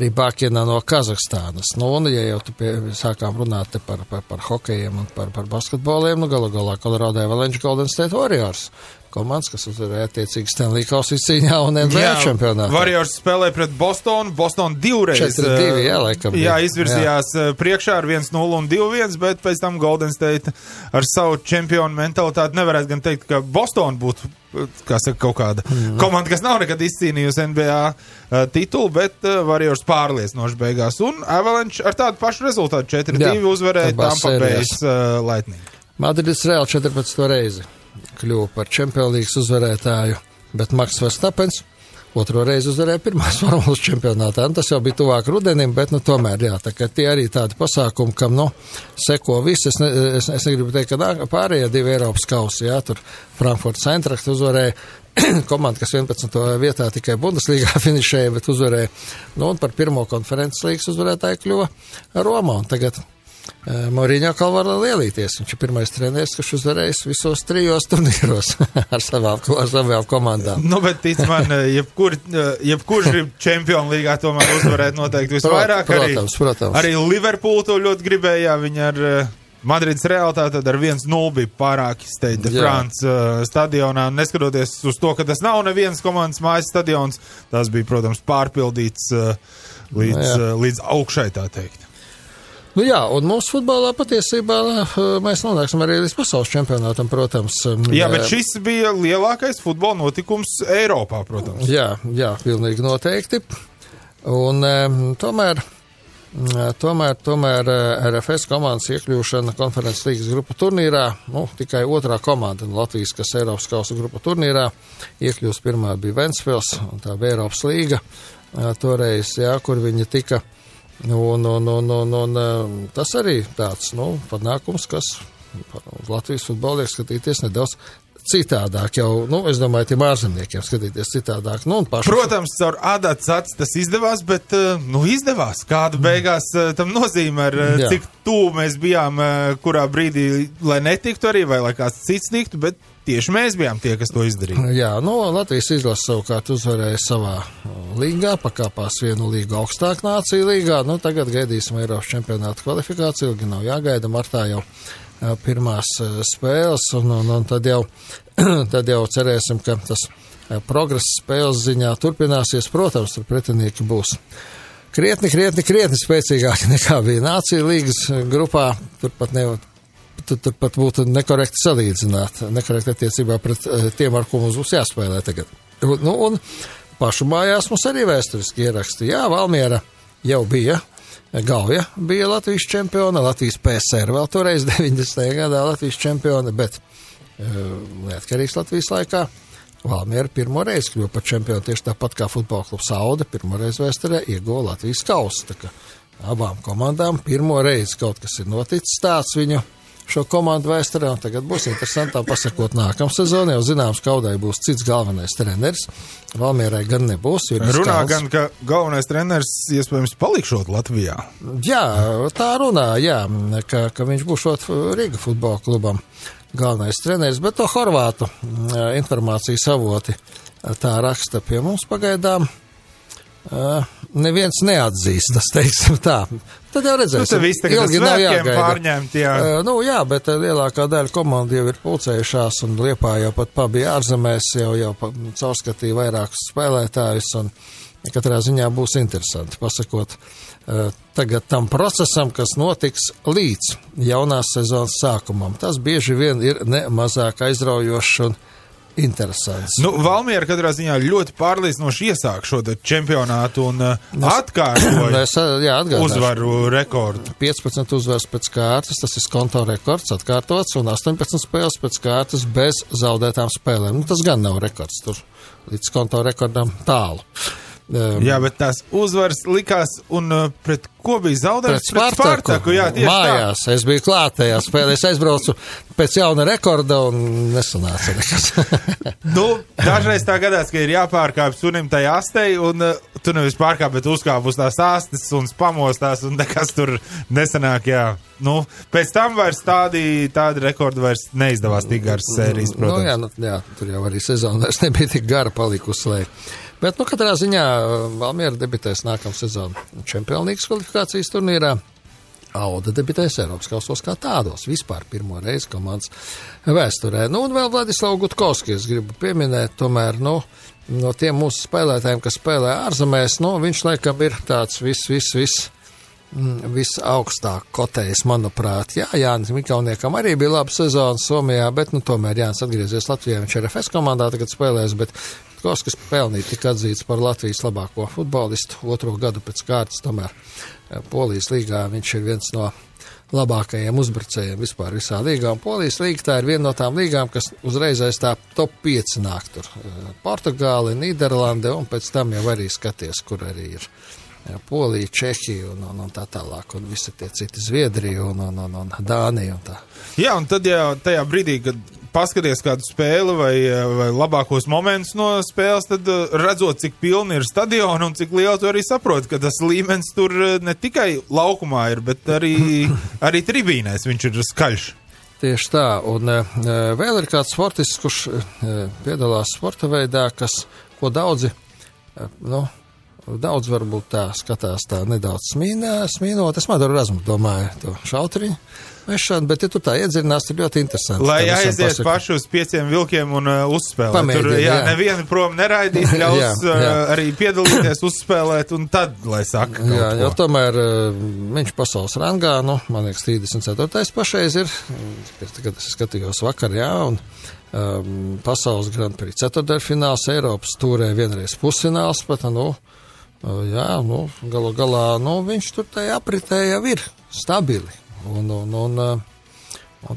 Rybakina no Kazahstānas. Un, ja jau tu sākām runāt par hokejiem un par basketboliem, galu galā Colorado Avalanche Golden State Warriors komandas, kas uzvarēja attiecīgi Stanley Kausa izcīņā un NBA čempionātā. Warriors spēlēja pret Bostonu 2 reiz. 4-2, laikam. Izvirzījās priekšā ar 1-0 un 2-1, bet pēc tam Golden State ar savu čempionu mentalitāti nevarētu gan teikt, ka Boston būtu, kaut kāda komanda, kas nav nekad izcīnījusi NBA titulu, bet Warriors pārliecinoši beigās. Un Avalanche ar tādu pašu rezultātu 4-2 uzvarēja Tampa Bay Lightning. Madrids Real 14. reizi kļuva par Champions League uzvarētāju, bet Maks Verstapens otro reizi uzvarēja pirmās formulas čempionātā. Tas jau bija tuvāk rudenim, bet, tomēr, jā, tā kā tie arī tādi pasākumi, kam, seko visi. Es negribu teikt, ka pārējie 2 Eiropas kausi, jā, tur Frankfurts Eintracht uzvarēja komanda, kas 11. vietā tikai Bundeslīgā finišēja, bet uzvarēja, un par pirmo konferences līgas uzvarētāju kļuva Roma, un tagad Mourinho var lielīties. Viņš ir pirmais treneris, kurš uzvarējis visos 3 turnīros ar savām komandām. Bet tic man, jebkurš grib Čempionu līgā tomēr uzvarēt noteikti visvairāk. Protams. Arī Liverpool to ļoti gribēja, viņi ar Madrids Realtā tad ar 1-0 bija pārāk Stade de France stadionā. Neskatoties uz to, ka tas nav nevienas komandas mājas stadions, tas bija, protams, pārpildīts līdz augšai, tā teikt. Un mūsu futbolā patiesībā mēs nonāksim arī līdz pasaules čempionātam, protams. Bet šis bija lielākais futbola notikums Eiropā, protams. Jā, pilnīgi noteikti. Un tomēr RFS komandas iekļūšana konferences līgas grupu turnīrā, tikai otrā komanda Latvijas, kas Eiropas kausa grupu turnīrā iekļūst. Pirmā bija Ventspils, un tā bija Eiropas līga toreiz, kur viņi tika. Un tas arī tāds, panākums, kas Latvijas futbolu liek skatīties nedaudz citādāk jau, es domāju, tiem ārzemniekiem skatīties citādāk. Protams, caur ādāts acis tas izdevās, bet, izdevās. Kāda beigās tam nozīmē, cik tuvu mēs bijām, kurā brīdī, lai netiktu arī, vai lai kāds cits tiktu, bet tieši mēs bijām tie, kas to izdarīja. Jā, Latvijas izlase savukārt uzvarēja savā līgā, pakāpās vienu līgu augstāk nāciju līgā. Tagad gaidīsim Eiropas čempionāta kvalifikāciju, ilgi nav jāgaida, martā jau pirmās spēles, un tad jau cerēsim, ka tas progress spēles ziņā turpināsies. Protams, tur pretinieki būs krietni spēcīgāki nekā bija nāciju līgas grupā. Turpat būtu nekorekti salīdzināt, nekorekti attiecībā pret tiem, ar ko mums būs jāspēlē tagad. Un pašu mājās mums arī vēsturiski ieraksti. Jā, Valmiera jau bija. Gauja bija Latvijas čempiona, Latvijas PSR vēl toreiz 90. gadā Latvijas čempiona, bet neatkarīgs Latvijas laikā Valmiera pirmo reizi kļuva par čempionu, tieši tāpat kā futbola klubs Aude pirmo reizi vēsturē ieguva Latvijas kausu. Tā kā abām komandām pirmo reizi kaut kas ir noticis tāds viņu šo komandu vēsturē, un tagad būs interesantām pasakot nākamā sezonā, jau zināms, ka Audai būs cits galvenais treneris. Valmierai gan nebūs. Runā gan, ka galvenais treneris iespējams palikšot Latvijā. Jā, tā runā, ka viņš būšot Rīga futbola klubam galvenais treneris, bet to horvātu informācijas avoti tā raksta pie mums pagaidām. Neviens neatzīstas, teiksim tā. Tad jau redzēsim. Ilgi nav jāgaida. Pārņemt, jā, bet lielākā daļa komandu jau ir pulcējušās, un Liepā jau pat pabija ārzemēs, jau caurskatīja vairākus spēlētājus, un katrā ziņā būs interesanti pasakot tagad tam procesam, kas notiks līdz jaunās sezonas sākumam. Tas bieži vien ir ne mazāk aizraujošs un interesants. Valmiera katrā ziņā ļoti pārliecinoši iesāk šo čempionātu un atkārtoja uzvaru rekordu. 15 uzvaras pēc kārtas, tas ir konto rekords atkārtots, un 18 spēles pēc kārtas bez zaudētām spēlēm. Tas gan nav rekords, tur līdz konto rekordam tālu. Jā, bet tās uzvaras likās, un pret ko bija zaudējums? Pret Spartaku, jā, tieši mājās. Tā. Es biju klātajā spēlē, es aizbraucu pēc jauna rekorda un nesanāca nekas. Dažreiz tā gadās, ka ir jāpārkāp sunim tai astei, un tu nevis pārkāp, bet uzkāp uz tās astes un pamostās, un nekas tur nesanāk, jā. Pēc tam vairs tādi rekordi vairs neizdevās tik garas sērijas, protams. Jā, tur jau arī sezona vairs nebija tik gara palikusi, lai. Bet, katrā ziņā Valmiera debitēs nākamā sezona Čempionlīgas kvalifikācijas turnīrā. Auda debitēs Eiropas kausos kā tādos, vispār pirmo reizi komandas vēsturē. Un vēl Vladislavu Gutkovski, es gribu pieminēt, tomēr, no tiem mūsu spēlētājiem, kas spēlē ārzemēs, viņš laikam ir tāds visaugstāk kotējs, manuprāt. Jā, Jānis Mikauniekam arī bija laba sezona Somijā, bet, tomēr Jānis atgriezies Latvijā, viņš RFS komandā tagad spēlēs, bet Gutkovskis pelnīja tika atzīts par Latvijas labāko futbolistu 2. gadu pēc kārtas, tomēr Polijas līgā viņš ir viens no labākajiem uzbrucējiem vispār visā līgā. Un Polijas līga tā ir viena no tām līgām, kas uzreiz aiz tā top 5 nāk tur. Portugāli, Nīderlande un pēc tam jau arī skaties, kur arī ir Polija, Čehija un tā tālāk. Un visi tie citi Zviedrija un Dānija un tā. Jā, un tad jau tajā brīdī, kad paskaties kādu spēli vai labākos momentus no spēles, tad redzot, cik pilni ir stadioni un cik liela tu arī saproti, ka tas līmenis tur ne tikai laukumā ir, bet arī tribīnēs viņš ir skaļš. Tieši tā, un vēl ir kāds sportists, kurš piedalās sporta veidā, ko daudzi, daudz varbūt tā skatās tā nedaudz smīnot. Es Madoru Razmu domāju to šautriņu mešanu, bet ja tu tā iedzinās, ir ļoti interesanti. Lai aizies paši uz 5 vilkiem un uzspēlēt. Tur, nevienu prom neraidīs, ļaus arī piedalīties, uzspēlēt un tad, lai saka. Jā, jo tomēr viņš pasaules rangā, man liekas, 34. pašreiz ir, kad es skatījos vakar, un pasaules Grand Prix ceturtdaļfināls, Eiropas tūrē vienreiz pusfināls pat, galu galā, viņš tur tajā apritē jau ir stabili. Un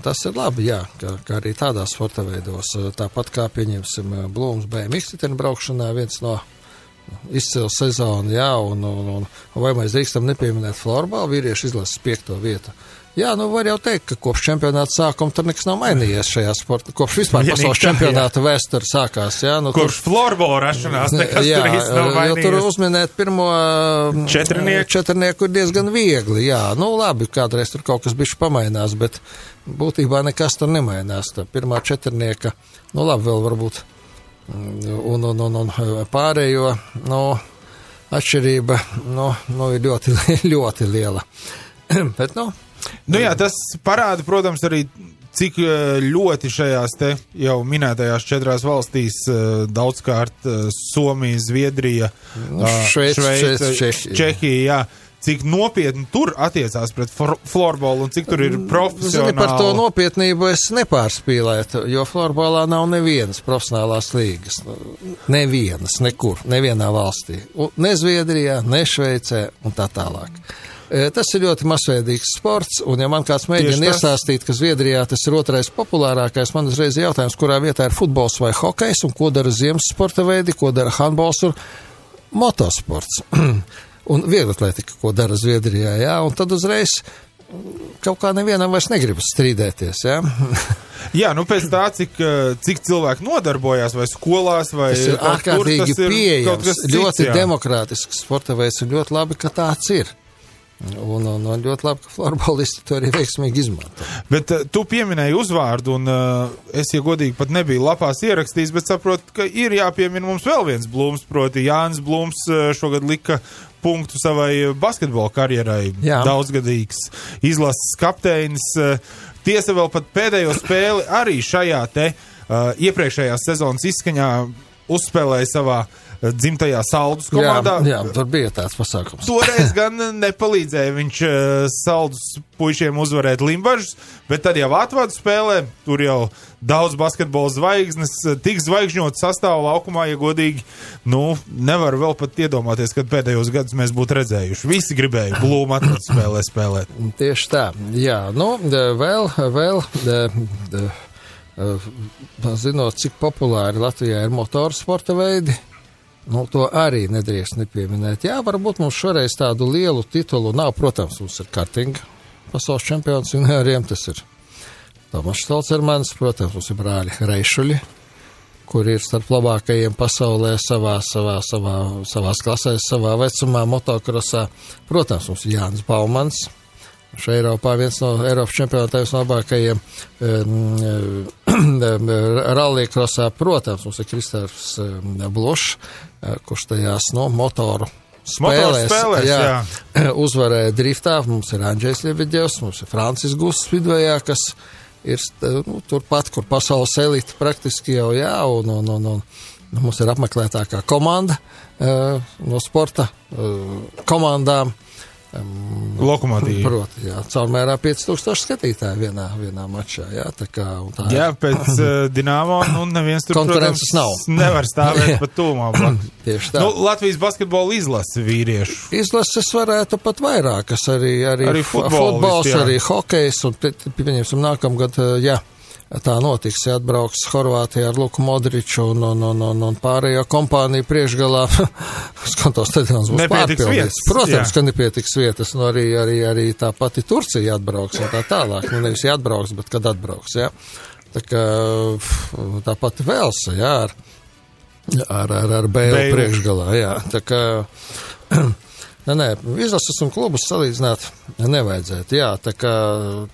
tas ir labi, ka arī tādās sporta veidos, tāpat kā pieņemsim Blūms BMX braukšanā, viens no izcila sezona, un vai mēs drīkstam nepieminēt florbālu, vīrieši izlases 5. vietu. Var jau teikt, ka kopš čempionāta sākuma tur nekas nav mainījies šajā sportā. Kopš vispār pasaules čempionāta vēsture sākās. Kopš florbola rašanās nekas tur īsti nav mainījies. Tur uzminēt pirmo četrnieku ir diezgan viegli. Labi, kādreiz tur kaut kas bišķi pamainās, bet būtībā nekas tur nemainās. Tā pirmā četrnieka, labi, vēl varbūt un pārējo, atšķirība, ir ļoti, ļoti liela. Bet, tas parāda, protams, arī cik ļoti šajās te jau minētajās 4 valstīs daudzkārt Somija, Zviedrija, Šveice, Čehija, cik nopietni tur attiecās pret florbolu un cik tur ir profesionāli. Zini, par to nopietnību es nepārspīlētu, jo florbolā nav nevienas profesionālās līgas. Nevienas, nekur, nevienā valstī. Ne Zviedrijā, ne Šveicē un tā tālāk. Tas ir ļoti masveidīgs sports, un ja man kāds mēģina iestāstīt, ka Zviedrijā tas ir 2. populārākais, man uzreiz ir jautājums, kurā vietā ir futbols vai hokejs, un ko dara ziemas sporta veidi, ko dara handbols un motosports. Un vieglatletika, ko dara Zviedrijā, un tad uzreiz kaut kā nevienam vairs negribas strīdēties, pēc tā, cik cilvēki nodarbojās, vai skolās, vai tas ir ārkārtīgi pieejams, ļoti demokrātisks sporta veids, un ļoti labi, ka tāds ir. Un ļoti labi, ka florbolisti to arī veiksmīgi izmanto. Bet tu pieminēji uzvārdu, un es, ja godīgi, pat nebiju lapās ierakstījis, bet saprotu, ka ir jāpiemina mums vēl viens Blūms, proti Jānis Blūms šogad lika punktu savai basketbola karjerai. Daudzgadīgs izlases kapteinis. Tiesa vēl pat pēdējo spēli arī šajā te iepriekšējās sezonas izskaņā uzspēlēja savā dzimtajā Saldus komandā. Jā, tur bija tāds pasākums. Toreiz gan nepalīdzēja viņš Saldus puišiem uzvarēt Limbažus, bet tad jau atvadu spēlē, tur jau daudz basketbola zvaigznes, tik zvaigžņot sastāvu laukumā, ja godīgi, nevar vēl pat iedomāties, kad pēdējos gadus mēs būtu redzējuši. Visi gribēja Blūmu atvadu spēlē spēlēt. Tieši tā, vēl zinot, cik populāri Latvijā ir motorsporta veidi, to arī nedrīkst nepieminēt. Varbūt mums šoreiz tādu lielu titulu nav. Protams, mums ir kartinga pasaules čempions junioriem, tas ir Tomas Stolcermans, protams, mums ir brāļi Reišuļi, kuri ir starp labākajiem pasaulē savās klasēs, savā vecumā, motokrosā. Protams, mums ir Jānis Baumans, šeit Eiropā viens no Eiropas čempionātājiem labākajiem rallija-krosā. Protams, mums ir Kristērs Blošs, kurš tajās motoru spēlēs uzvarēja driftā. Mums ir Andžejs Ļebeģevs, mums ir Francis Gusts Vidvejā, kas ir turpat, kur pasaules elite praktiski jau un mums ir apmeklētākā komanda no sporta komandām. Lokomotīvi. Proti, jā, caurmērā 5000 skatītāji vienā mačā, jā, tā kā. Tā jā, pēc Dinamo, neviens tur, konkurences protams, nevar stāvēt pat tūmā. Tieši tā. Latvijas basketbola izlase vīriešu. Izlases varētu pat vairākas, arī futbols, arī hokejs, un pieņemsim nākamgad, jā. Tā notiks, ja atbrauks Horvātijā ar Luku Modriču un pārējo kompāniju priekšgalā. Skantos stadions būs pārpildīts. Protams, ka nepietiks vietas, arī tā pati Turcija atbrauks un tā tālāk. Nevis atbrauks, bet kad atbrauks, jā. Tā kā tā pati Velsa, jā, ar Bēlu priekšgalā, jā. Tā kā... Nē, izlases un klubus salīdzināt nevajadzētu, jā, tā kā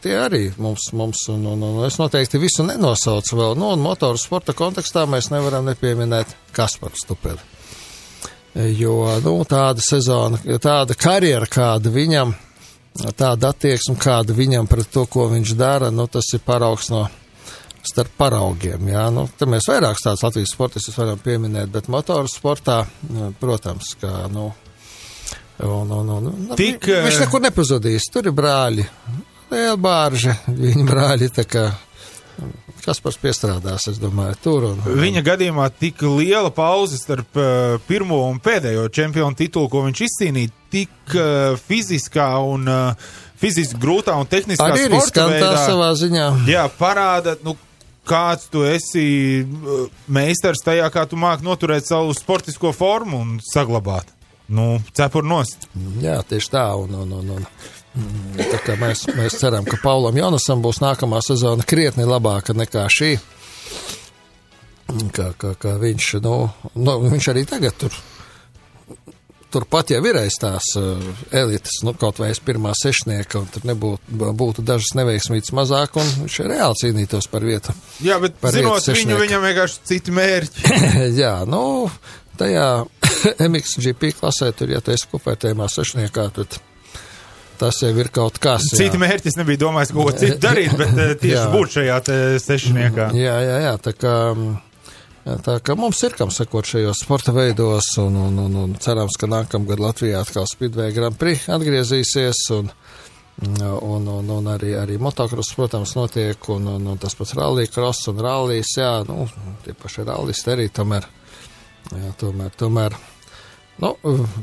tie arī mums un es noteikti visu nenosaucu vēl, un motoru sporta kontekstā mēs nevaram nepieminēt Kasparu Stupeli, jo, tāda sezona, tāda karjera, kāda viņam, tāda attieksme, kāda viņam pret to, ko viņš dara, tas ir paraugs no starp paraugiem, jā, te mēs vairākus tādus Latvijas sportistus varam pieminēt, bet motoru sportā, protams, kā, viņš nekur nepazudīs. Tur ir brāļi. Liela bārža, viņa brāļi, tā kā Kaspars piestrādās, es domāju, tur. Viņa gadījumā tik liela pauze starp pirmo un pēdējo čempionu titulu, ko viņš izcīnīja, tik fiziskā un fiziski grūtā un tehniskā sporta veidā. Savā ziņā. Jā, parāda, kāds tu esi meistars tajā, kā tu māki noturēt savu sportisko formu un saglabāt. Cepur nost. Jā, tieši tā, tā kā mēs ceram, ka Paulam Jonasam būs nākamā sezona krietni labāka nekā šī, ka viņš, viņš arī tagad turpat jau ir aiz tās elites, kaut vai aiz pirmā sešnieka, un tur būtu dažas neveiksmītas mazāk, un viņš reāli cīnītos par vietu. Jā, bet zinot viņam vienkārši citi mērķi. Jā, tajā MXGP klasē, tur, ja tu esi kopvērtējumā sešniekā, tad tas jau ir kaut kas. Citi mērķis nebija domājis, ko citu darīt, bet tieši būt šajā sešniekā. Jā, tā kā mums ir kam sekot šajos sporta veidos, un cerams, ka nākamgad Latvijā atkal Speedway Grand Prix atgriezīsies, un arī motocross, protams, notiek, un tas pats rallija cross un rallijas, jā, tie paši rallisti arī tomēr,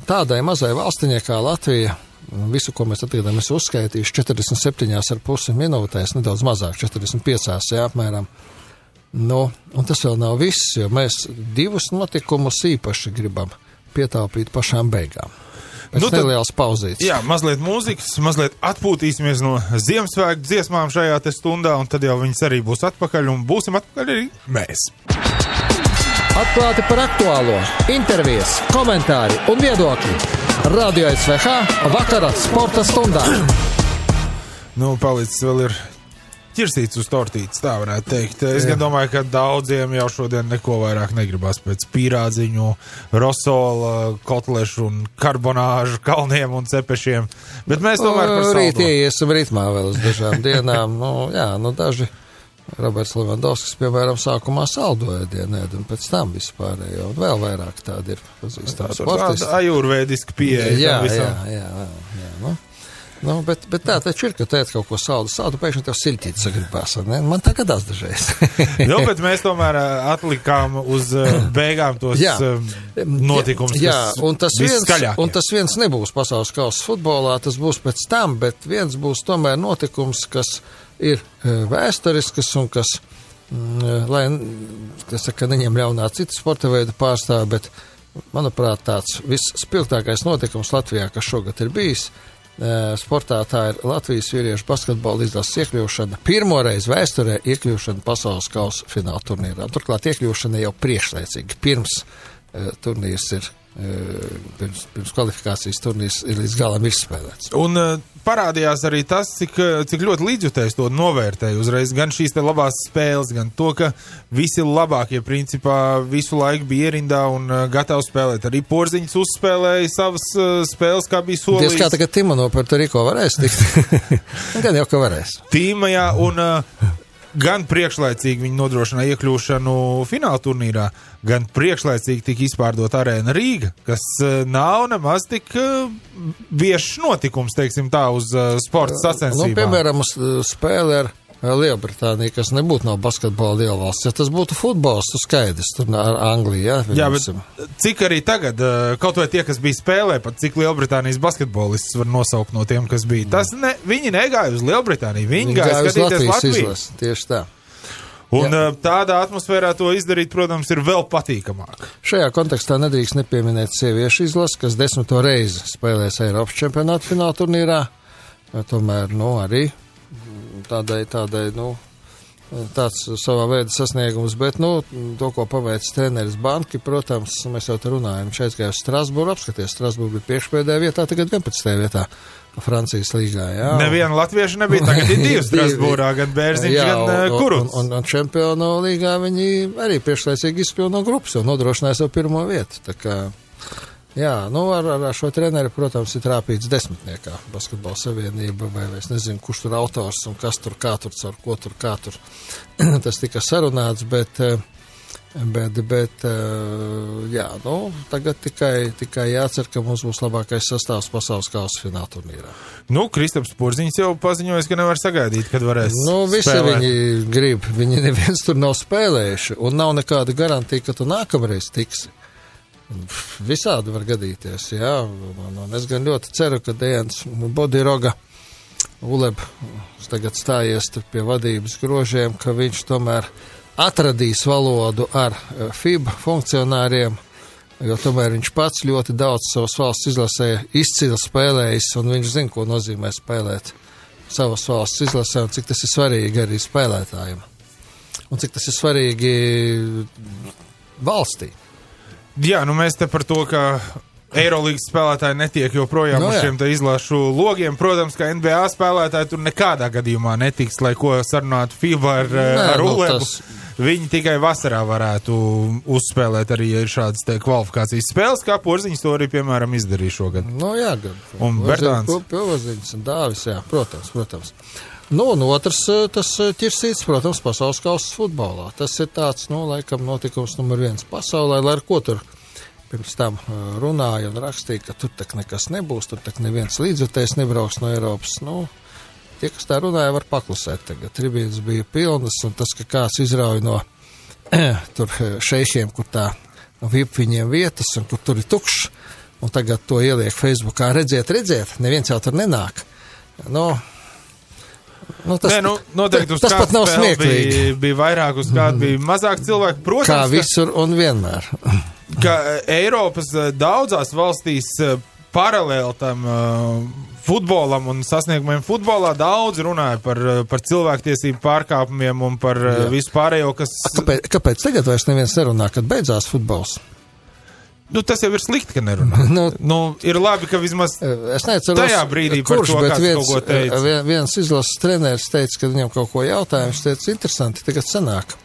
tādai mazai valstiņai kā Latvija, visu, ko mēs atgadām, es uzskaitīšu 47,5 minūtēs, nedaudz mazāk, 45, jā, apmēram. Un tas vēl nav viss, jo mēs divus notikumus īpaši gribam pietaupīt pašām beigām. Pēc nelielas pauzītes. Jā, mazliet mūzikas, mazliet atpūtīsimies no Ziemassvētku dziesmām šajā te stundā, un tad jau viņas arī būs atpakaļ, un būsim atpakaļ arī mēs. Atklāti par aktuālo, intervijas, komentāri un viedokļi. Radio SVH vakara sporta stundā. Palicis vēl ir ķirsīts uz tortītes, tā varētu teikt. Es gan domāju, ka daudziem jau šodien neko vairāk negribas pēc pīrādziņu, rosola, kotlešu un karbonāžu kalniem un cepešiem. Bet mēs tomēr par saldo. Rīt iesim ritmā vēl uz dažām dienām. Daži. Roberts Levandovskis, piemēram, sākumā saldoja ēdienu, un pēc tam vispārējo, un vēl vairāk tādi ir pazīstami sportisti. Tāda ajurvēdiska pieeja. Jā. Bet tā taču ir, ka tēt kaut ko saldu, pēkšņi tev siltīt sagribās, ne? Man tā gadās dažreiz. Bet mēs tomēr atlikām uz beigām tos notikumus, kas viskaļākie. Un tas viens nebūs pasaules kausa futbolā, tas būs pēc tam, bet viens būs tomēr notikums, kas ir vēsturiskas un kas, lai, neņem ļaunā citu sporta veidu pārstāvi, bet, manuprāt, tāds visspilgtākais notikums Latvijā, kas šogad ir bijis, sportā tā ir Latvijas vīriešu basketbola izlases iekļūšana, pirmoreiz vēsturē iekļūšana pasaules kausa fināla turnīrā. Turklāt iekļūšana jau priekšlaicīgi, pirms turnīrs ir, pirms kvalifikācijas turnīrs ir līdz galam izspēlēts. Un parādījās arī tas, cik ļoti līdzjutējs to novērtēja uzreiz, gan šīs te labās spēles, gan to, ka visi labākie principā visu laiku bija ierindā un gatavi spēlēt. Arī Porziņš uzspēlēja savas spēles, kā bija solījis. Diez kā tagad Tima no Puerto Rico varēs tikt. Gan jau, ka varēs. Tima, jā, un gan priekšlaicīgi viņi nodrošināja iekļūšanu fināla turnīrā, gan priekšlaicīgi tika izpārdot arēna Rīga, kas nav nemaz tik viešs notikums, teiksim tā, uz sporta sacensībām. Nu, piemēram, spēle ar Lielbritānija, kas nebūtu no basketbola lielvalsts. Ja tas būtu futbols, tu skaidrs, tur ar Angliju, jā? Jā, bet cik arī tagad, kaut vai tie, kas bija spēlē, pat cik Lielbritānijas basketbolists var nosaukt no tiem, kas bija. Viņi negāja uz Lielbritāniju, viņi gāja skatīties Latviju. Izlas, tieši tā. Un tādā atmosfērā to izdarīt, protams, ir vēl patīkamāk. Šajā kontekstā nedrīkst nepieminēt sieviešu izlas, kas 10. reizi spēlēs Eiropas čempionāta fināla turnīrā. Tomēr, arī tādai, tāds savā veida sasniegums, bet, to, ko paveic treneris Banki, protams, mēs jau te runājam, viņš aizgāja uz Strasbūru, apskaties, Strasbūra bija priekšpēdējā vietā, tagad 11. vietā Francijas līgā, jā. Neviena latvieša nebija, tagad ir divi Strasbūrā, gan Bērziņš, gan Kuruts. Un čempionu līgā viņi arī priekšlaicīgi izkļuva no grupas, un nodrošināja savu pirmo vietu, tā kā... Jā, ar šo treneri, protams, ir trāpīts desmitniekā basketbola savienība, vai es nezinu, kurš tur autors un kas tur, kā tur, caur ko tur, kā tur. Tas tika sarunāts, bet tagad tikai jācer, ka mums būs labākais sastāvs pasaules kausa fināla turnīrā. Kristaps Porziņš jau paziņojas, ka nevar sagaidīt, kad varēs visi spēlēt. Viņi grib, viņi neviens tur nav spēlējuši, un nav nekāda garantija, ka tu nākamreiz tiksi. Visādi var gadīties, jā, un es gan ļoti ceru, ka Dejans Bodiroga Uleb tagad stājies pie vadības grožiem, ka viņš tomēr atradīs valodu ar FIBA funkcionāriem, jo tomēr viņš pats ļoti daudz savas valsts izlasē izcili spēlējis, un viņš zina, ko nozīmē spēlēt savas valsts izlasē, un cik tas ir svarīgi arī spēlētājiem, un cik tas ir svarīgi valstī. Jā, mēs te par to, ka Eirolīgas spēlētāji netiek joprojām uz šiem te izlašu logiem. Protams, ka NBA spēlētāji tur nekādā gadījumā netiks, lai ko sarunātu FIBA ar Ulebu. Viņi tikai vasarā varētu uzspēlēt arī, ja ir šādas te kvalifikācijas spēles, kā Porziņš to arī, piemēram, izdarīja šogad. Gan. Un Bertāns. Porziņš un Dāvis, jā, protams. Un otrs, tas ķirsīts, protams, pasaules kausas futbolā. Tas ir tāds, laikam notikums numur 1 pasaulē, lai ar ko tur pirms tam runāja un rakstīja, ka tur tak nekas nebūs, tur tak neviens līdzjutējs nebrauks no Eiropas. Tie, kas tā runāja, var paklusēt tagad. Tribīnas bija pilnas, un tas, ka kāds izrauj no tur šeišiem, kur tā VIP viņiem vietas, un kur tur ir tukšs, un tagad to ieliek Facebookā, redziet, neviens jau tur nenāk. Noteikti uz tas pat nav smieklīgi. Bija vairāk, uz kādu bija mazāk cilvēku. Protams, kā visur un vienmēr. Ka Eiropas daudzās valstīs paralēli tam futbolam un sasniegumiem futbolā daudz runāja par cilvēktiesību pārkāpumiem un par visu pārējo, kas... Kāpēc tagad vairs neviens nerunā, kad beidzās futbols? Tas jau ir slikti, ka nerunā. Ir labi, ka vismaz tajā brīdī par to kāds kaut ko teica. Viens izlases treneris teica, ka viņam kaut ko jautāja, viņš teica, interesanti, tagad sanāk.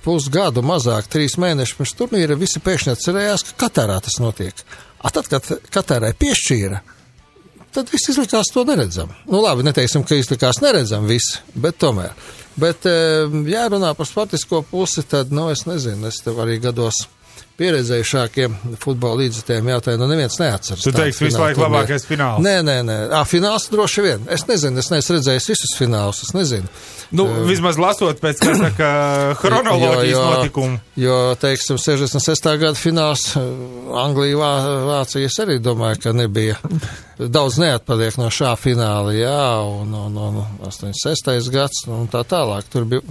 Pusgadu mazāk, 3 mēneši pirms turnīra, visi pēkšņi atcerējās, ka Katarā tas notiek. Tad, kad Katarai piešķīra, tad viss izlikās to neredzam. Labi, neteiksim, ka izlikās neredzam visi, bet tomēr. Bet, ja runā par sportisko pusi, tad, es nezinu, es tev arī gados pieredzējušākiem futbola līdzjutējiem jautāju, neviens neatceras. Tu teiksi visu laiku labākais fināls? Nē. Fināls droši vien. Es nezinu, es neesmu redzējis visus finālus, es nezinu. Vismaz lasot pēc chronoloģijas notikumu. Jo, teiksim, 66. gada fināls Anglija, Vācija, es arī domāju, ka nebija. Daudz neatpaliek no šā fināla, un 86. gads, un tā tālāk. Tur bija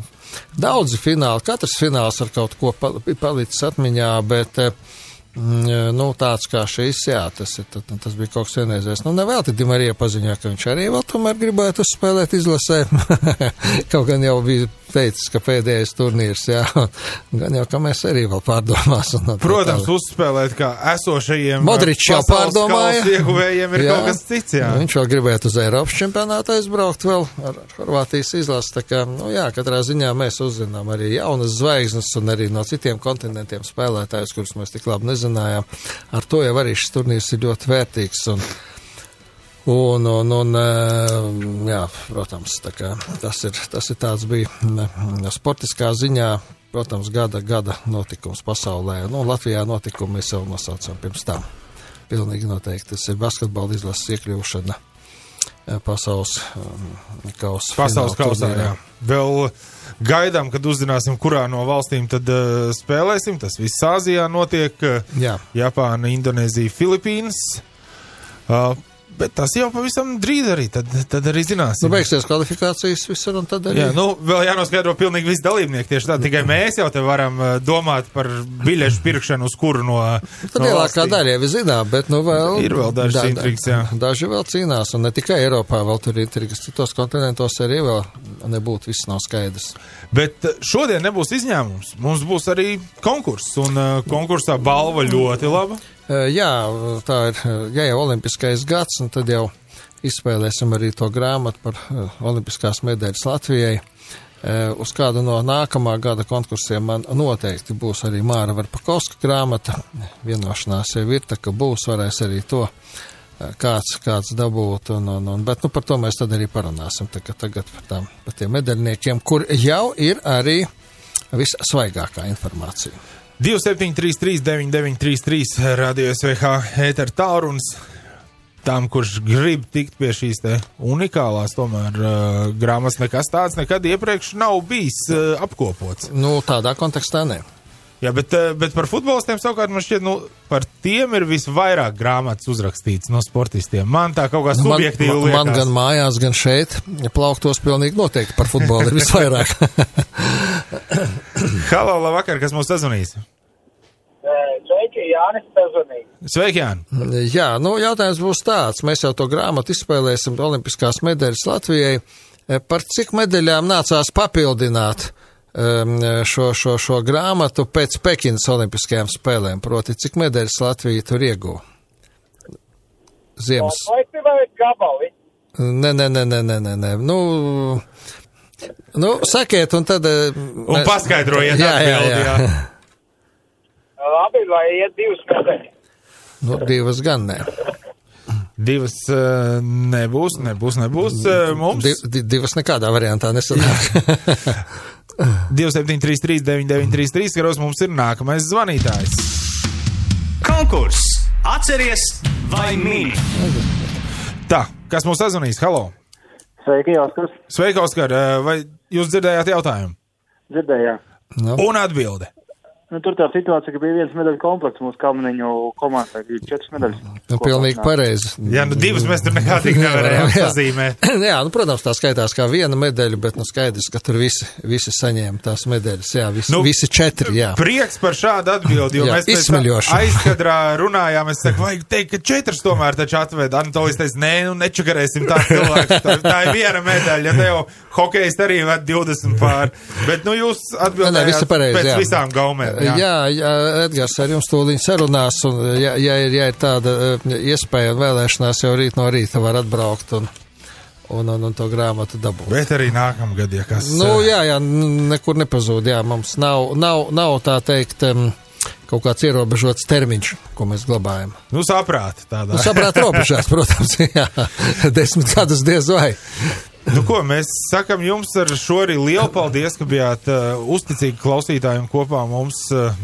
daudzi fināli, katrs fināls ar kaut ko palicis atmiņā, bet, tāds kā šis, tas bija kaut kas vienreizējs. Nevēlti Di Marija paziņoja, ka viņš arī vēl tomēr gribētu uzspēlēt izlasē. Kaut gan jau bija teicis, ka pēdējais turnīrs, gan jau, ka mēs arī vēl pārdomāsim. Protams, uzspēlēt kā esošajiem Modričs jau pārdomāja. Ieguvējiem ir kaut kas cits, Viņš vēl gribētu uz Eiropas čempionātu aizbraukt vēl ar Horvātijas izlasi, tā kā, katrā ziņā mēs uzzinām arī jaunas zvaigznes un arī no citiem kontinentiem spēlētājus, kurus mēs tik labi nezinājām. Ar to jau arī šis turnīrs ir ļoti vērtīgs Un, jā, protams, tā kā tas ir tāds bija sportiskā ziņā, protams, gada notikums pasaulē. Latvijā notikumi mēs jau nosaucam pirms tam. Pilnīgi noteikti tas ir basketbola izlases iekļūšana pasaules kausā, jā. Vēl gaidām, kad uzzināsim, kurā no valstīm tad spēlēsim. Tas viss Āzijā notiek. Jā. Japāna, Indonēzija, Filipīnas. Bet tas jau pavisam drīz arī, tad arī zināsim. Beigsies kvalifikācijas visur un tad arī. Jā, vēl jānoskaidro pilnīgi visi dalībnieki tieši tā. Tikai mēs jau te varam domāt par biļešu pirkšanu uz kuru no Tad lielākā daļa jau zinām, bet vēl. Ir vēl dažas intrigas, jā. Daži vēl cīnās, un ne tikai Eiropā vēl tur ir intrigas. Citos kontinentos arī vēl nebūtu, viss nav skaidrs. Bet šodien nebūs izņēmums. Mums būs arī konkurss, un konkursā balva ļoti laba. Jā, tā ir, jau olimpiskais gads, un tad jau izspēlēsim arī to grāmatu par olimpiskās medaļas Latvijai. Uz kādu no nākamā gada konkursiem man noteikti būs arī Māra Varpakovska grāmata. Vienošanās jau ir, tā ka varēs arī to kāds dabūt, bet par to mēs tad arī parunāsim. Tagad par tiem medaļniekiem, kur jau ir arī vissvaigākā informācija. 2733 9933 Radio SVH ēter tālrunis tam, kurš grib tikt pie šīs te unikālās tomēr grāmatas. Nekas tāds nekad iepriekš nav bijis apkopots. Tādā kontekstā ne. Jā, bet par futbolistiem savukārt man šķiet, par tiem ir visvairāk grāmatas uzrakstīts no sportistiem. Man tā kaut kā subjektīvi liekas. Man gan mājās, gan šeit plauktos pilnīgi noteikti par futbolu ir visvairāk. Halo, labvakar, kas mūs sazvanīs? Sveiki, Jānis sazvanīs. Sveiki, Jāni. Jā, jautājums būs tāds. Mēs jau to grāmatu izspēlēsim olimpiskās medaļas Latvijai. Par cik medaļām nācās papildināt šo grāmatu pēc Pekinas olimpiskajām spēlēm? Proti, cik medaļas Latvija tur ieguva? Ziemas. Vai gabali? Nē. Sakiet, un tad... Un paskaidrojiet atbildi, jā. Labi, vai iet 2 medaļas? 2 gan ne. 2 nebūs. Mums? 2 nekādā variantā nesanāk. 2733 9933, karos mums ir nākamais zvanītājs. Konkurss! Atceries vai mini? Tā, kas mums sazvanīs? Halo! Sveiki, Oskars. Sveiki, Oskar. Vai jūs dzirdējāt jautājumu? Dzirdējāt. Un atbilde. Tur tā situācija, ka bija 1 medaļu komplekts mūsu Kalniņu komandai, bija 4 medaļas. Pilnīgi pareizi. Jā, 2 mēs tur nekā tik nevarējām pazīmēt. Jā, protams, tā skaitās kā 1 medaļa, bet skaidrs, ka tur visi saņēma tās medaļas. Jā, visi 4, jā. Prieks par šādu atbildi, jo mēs pēc aizkadrā runājām, es saku, vajag teikt, ka 4 tomēr taču atved. Anatolijs teica, nečakarēsim tā cilvēku. Tā ir 1 medaļa, ja tev hokejs arī ved 20 pār. Bet, jūs atbildējāt pēc visām gaumēm. Jā, Edgars ar jums tūlīt sarunās, un ja ir tāda iespēja un vēlēšanās, jau rīt no rīta var atbraukt un to grāmatu dabūt. Bet arī nākamgad, ja kas... Jā, nekur nepazūd, jā, mums nav tā teikt kaut kāds ierobežots termiņš, ko mēs glabājam. Saprāt tādā. Saprāt robežās, protams, jā, 10 gadus diez vai. Ko, mēs sakam jums ar šo arī lielu paldies, ka bijāt uzticīgi klausītājiem kopā mums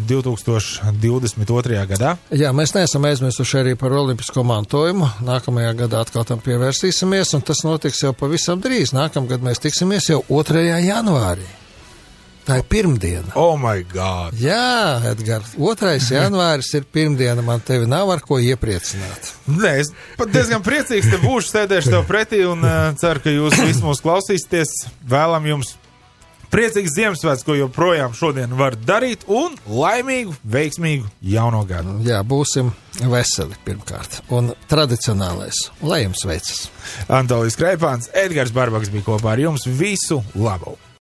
2022. gadā. Jā, mēs neesam aizmirsuši arī par olimpisko mantojumu. Nākamajā gadā atkal tam pievērsīsimies, un tas notiks jau pavisam drīz. Nākamgad mēs tiksimies jau 2. janvārī. Tā ir pirmdiena. Oh my God! Jā, Edgars, 2. janvāris ir pirmdiena, man tevi nav ar ko iepriecināt. Nē, es pat diezgan priecīgs te būšu, sēdēšu tev pretī un ceru, ka jūs visi mūs klausīsieties. Vēlam jums priecīgs Ziemassvētku, ko joprojām šodien var darīt, un laimīgu, veiksmīgu jauno gadu. Jā, būsim veseli pirmkārt. Un tradicionālais, lai jums veicas. Antolijs Kreipāns, Edgars Barbaks bija kopā ar jums. Visu labu!